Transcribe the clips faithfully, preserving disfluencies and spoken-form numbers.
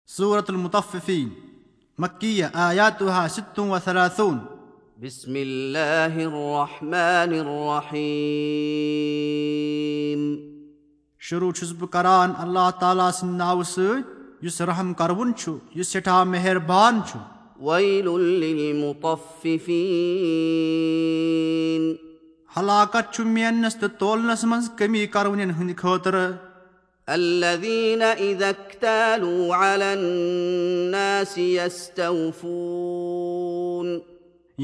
سورة المطففين، مكية، آياتها ست وثلاثون۔ بسم الله الرحمن الرحيم۔ شروع چھُس بہٕ کران اللہ تعالیٰ سٕنٛدِ ناوٕ سۭتۍ، یُس رحم کرون چھُ، یُس سٮ۪ٹھاہ مہربان چھُ۔ ويل للمطففين۔ ہلاکت چھُ میننس تہٕ تولنس منٛز کمی کرونٮ۪ن ہٕنٛدِ خٲطرٕ۔ الذين إذا اكتالوا على الناس يستوفون۔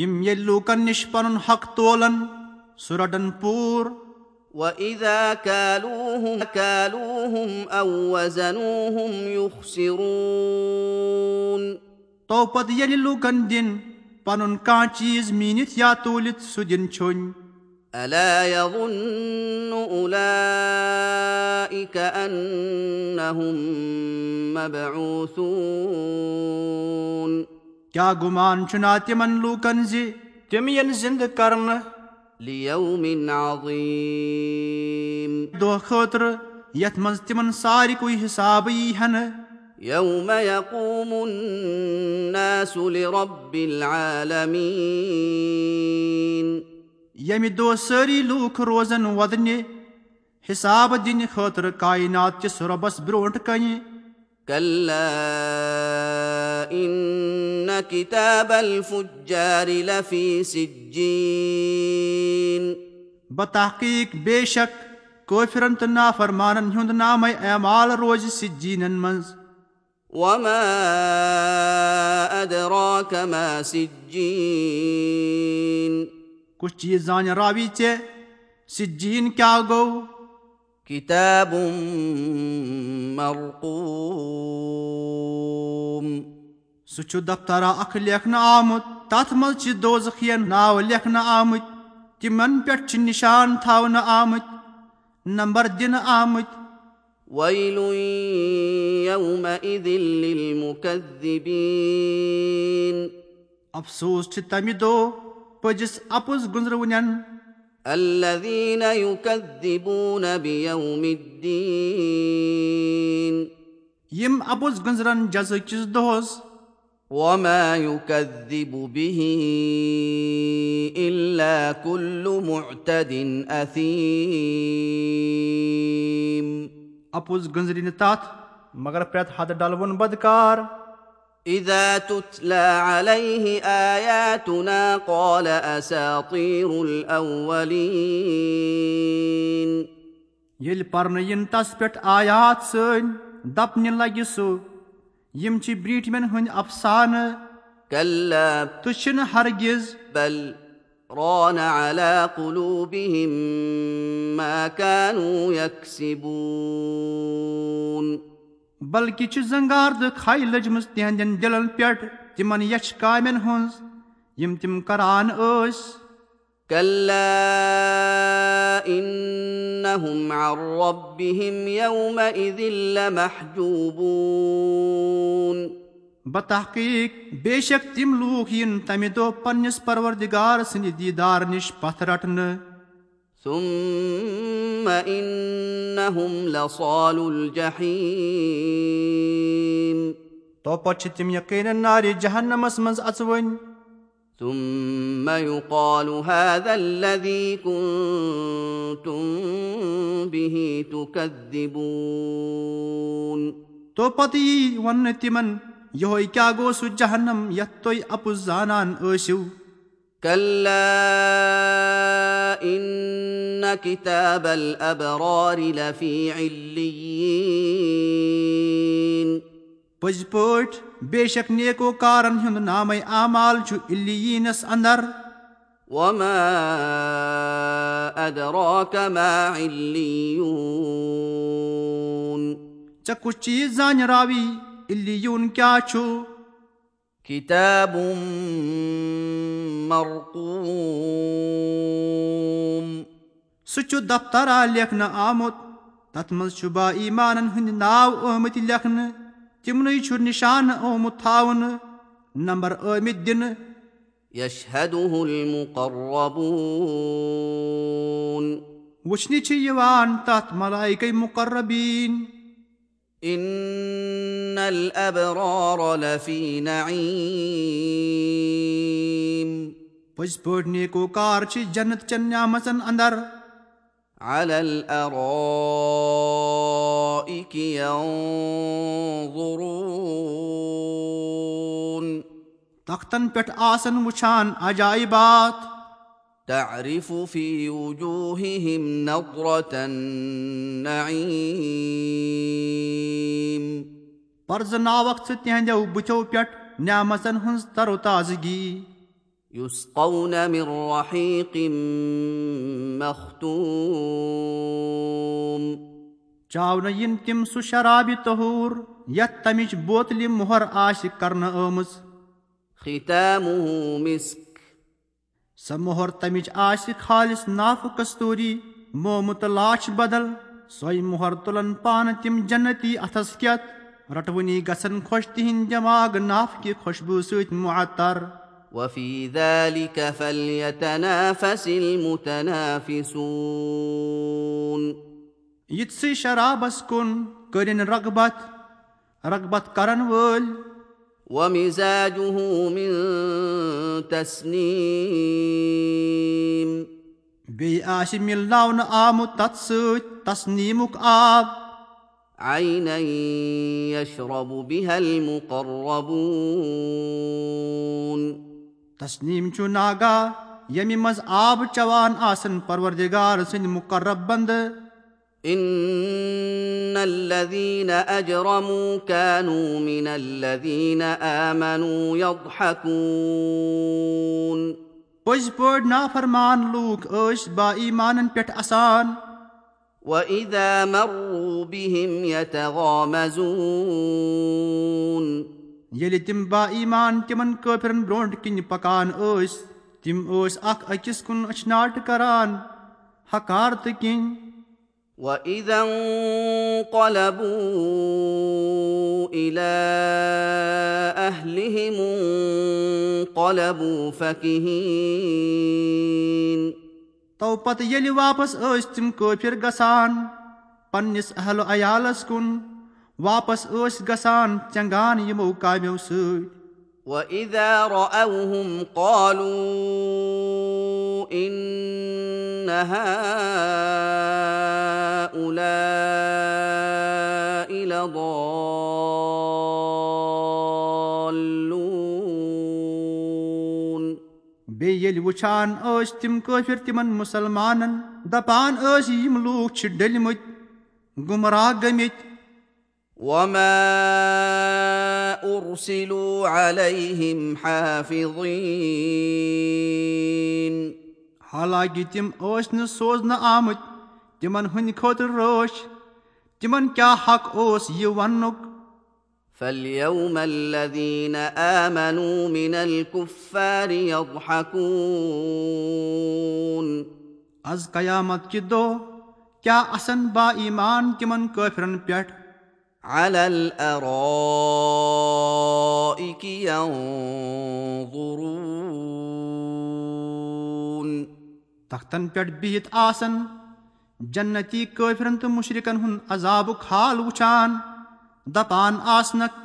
یِم ییٚلہِ لوٗکن نِش پنُن حق تولن، سُہ رٹن پوٗرٕ۔ وإذا كالوهم كالوهم أو وزنوهم يخسرون۔ تو پتہٕ ییٚلہِ لوٗکن دِن پنُن کانٛہہ چیٖز میٖنِتھ یا توٗلِتھ، سُہ دِن چھوٚنۍ۔ ألا يظن أولئك أنهم مبعوثون۔ کیٛاہ گُمان چھُنا تِمن لوٗکن زِ تِم یِن زِندٕ کرنہٕ؟ ليوم عظيم۔ دۄہ خٲطرٕ یتھ منٛز تِمن سارِکُے حساب یی ہنہٕ۔ يوم يقوم الناس لرب العالمين۔ ییٚمہِ دۄہ سٲری لوٗکھ روزن وۄدنہِ حساب دِنہٕ خٲطرٕ کائنات کِس رۄبس برونٛٹھ کنہِ۔ كلا إن كتاب الفجار لفي سجين۔ بتحقیق بے شک کٲفرن تہٕ نافرمانن ہُنٛد نامے اعمال روزِ سجینن منٛز۔ وما أدراك ما سجين۔ کُس چیٖز زانہِ راوی ژےٚ سجین کیٛاہ گوٚو؟ كتاب مرقوم۔ سُہ چھُ دفترا اکھ لیکھنہٕ آمُت، تتھ منٛز چھِ دوزخین ناو لیکھنہٕ آمٕتۍ، تِمن پٮ۪ٹھ چھِ نشان تھاونہٕ آمٕتۍ۔ نمبر دِنہٕ آمٕتۍ۔ ويل يومئذ للمكذبين۔ افسوس چھُ تمہِ دۄہ پٔزِس اپُز گُنزرونٮ۪ن۔ الذين يكذبون بيوم الدين۔ یِم اپُز گُنزرن جزا کِس دۄہس۔ وما يكذب به إلا كل معتد أثيم۔ اپُز گُنزرِ نہٕ تتھ مگر پرٛٮ۪تھ حد ڈلوُن بدکار۔ إذا تتلى عليه آياتنا قال أساطير الأولين۔ ییٚلہِ پرنہٕ یِن تس پٮ۪ٹھ آیات سٲنۍ، دپنہِ لگہِ سُہ، یِم چھِ برٛیٹھمٮ۪ن ہٕنٛدۍ افسانہٕ۔ كلا تہٕ چھِنہٕ ہرگز۔ بل ران على قلوبهم ما كانوا يكسبون۔ بلکہِ چھِ زنگار تہٕ کھے لٔجمٕژ تِہنٛدٮ۪ن دِلن پٮ۪ٹھ تِمن یچھِ کامٮ۪ن ہٕنٛز، یِم تِم کران ٲسۍ۔ كلا إنهم عن ربهم يومئذ لمحجوبون۔ بتحقیق بے شک تِم لوٗکھ یِن تمہِ دۄہ پننِس پروردگار سٕنٛدِ دیدار نِش پتھ رٹنہٕ۔ ثم إنهم لصالو الجحيم۔ تو پتہٕ چھِ تِم یقیناً نارِ جہنمس منٛز اژوٕنۍ۔ ثم يقال هذا الذي كنتم به تكذبون۔ تو پتہٕ یی وننہٕ تِمن، یِہوے کیٛاہ گوٚو سُہ جہنم یتھ تُہۍ اپُز زانان ٲسِو؟ كلا إن كتاب الأبرار لفي عليين۔ پٔزۍ پٲٹھۍ بے شک نیکوکارن ہُنٛد نامے اعمال چھُ علیینس اندر۔ وما أدراك ما عليون۔ ژےٚ کُس چیٖز زانہِ راوی علیون کیٛاہ چھُ؟ كتاب مرقوم۔ سُہ چھُ دفترا لیکھنہٕ آمُت، تتھ منٛز چھُ با ایمانن ہٕنٛدۍ ناو آمٕتۍ لیکھنہٕ، تِمنٕے چھُ نشانہٕ آمُت تھاونہٕ، نمبر آمٕتۍ دِنہٕ۔ يشهده المقربون۔ وٕچھنہِ چھِ یِوان تتھ ملائکے مقربین۔ إن الأبرار لفي نعيم. پٔزۍ پٲٹھۍ نیکوکار چھِ جنت چٮ۪ن نعمژن اندر۔ على الأرائك ينظرون. تختن پٮ۪ٹھ آسن وٕچھان عجائبات۔ تعرف في وجوههم نضرة النعيم. پرزناوکھ ژٕ تِہنٛدیو بُتھیو پٮ۪ٹھ نعمژن ہٕنٛز تر و تازگی۔ يسقون من رحيق مختوم. چاونہٕ یِن تِم سُہ شرابہِ طہوٗر یتھ تمِچ بوتلہِ مۄہر آسہِ کرنہٕ آمٕژ۔ ختامه مسك. سۄ مۄہر تمِچ آسہِ خالص نافہٕ کستوٗری، مومہٕ تہٕ لاچھ بدل۔ سۄے مۄہر تُلن پانہٕ تِم جنتی اتھس کٮ۪تھ۔ رٹوٕنی گژھن خۄش تِہنٛدۍ دٮ۪ماغ نافہٕ کہِ خوشبوٗ سۭتۍ معطر۔ وفي ذلك فليتنافس المتنافسون. یِتھسٕے شرابس کُن کٔرِن رغبت، رغبت کرن وٲلۍ۔ ومزاجه من تسنيم. بیٚیہِ آسہِ مِلناونہٕ آمُت تتھ سۭتۍ تسنیٖمُک آب۔ عينا يشرب بها المقربون. تسنیٖم چھُ ناگا، ییٚمہِ منٛز آب چٮ۪وان آسن پروردگار سٕنٛدۍ مقرب بندٕ۔ إن الذين أجرموا كانوا من الذين آمنوا يضحكون. پٔزۍ پٲٹھۍ نافرمان لوٗکھ ٲسۍ با ایمانن پٮ۪ٹھ اسان۔ وإذا مروا بهم يتغامزون. ییٚلہِ تِم با ایمان تِمن کٲفرن برونٛٹھ کِنۍ پکان ٲسۍ، تِم ٲسۍ اکھ أکِس کُن أچھناٹ کران، حقارتہٕ کِنۍ۔ وإذا انقلبوا إلى أهلهم انقلبوا فكهين. تو پتہٕ ییٚلہِ واپس ٲسۍ تِم کٲفر گژھان پننِس اہل و عیالس کُن، واپس ٲسۍ گژھان ژٮ۪نٛگان یِمو کامیو سۭتۍ۔ وإذا رأوهم قالوا إن هؤلاء لضالون. بیٚیہِ ییٚلہِ وٕچھان ٲسۍ تِم کٲفر تِمن مُسلمانن، دپان ٲسۍ، یِم لوٗکھ چھِ ڈٔلۍ مٕتۍ، گمراہ گٔمٕتۍ۔ وما أرسلوا عليهم حافظين. حالانکہ تِم ٲسۍ نہٕ سوزنہٕ آمٕتۍ تِمن ہٕنٛدِ خٲطرٕ رٲچھ۔ تِمن کیٛاہ حق اوس یہِ وننُک؟ فاليوم الذين آمنوا من الكفار يضحكون. از قیامت کہِ دۄہ کیٛاہ اسن با ایمان تِمن کٲفرن پٮ۪ٹھ؟ على الأرائك ينظرون. تختن پٮ۪ٹھ بِہِتھ آسن جنتی کٲفرن تہٕ مُشرِکن ہُنٛد عذابُک حال وٕچھان، دپان آسنکھ۔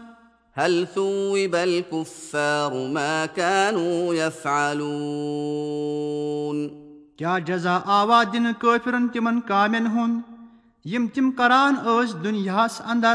هل ثوب الكفار ما كانوا يفعلون. کیٛاہ جزا آوا دِنہٕ کٲفرن تِمن کامٮ۪ن ہُنٛد یِم تِم کران ٲسۍ دُنیاہس اندر؟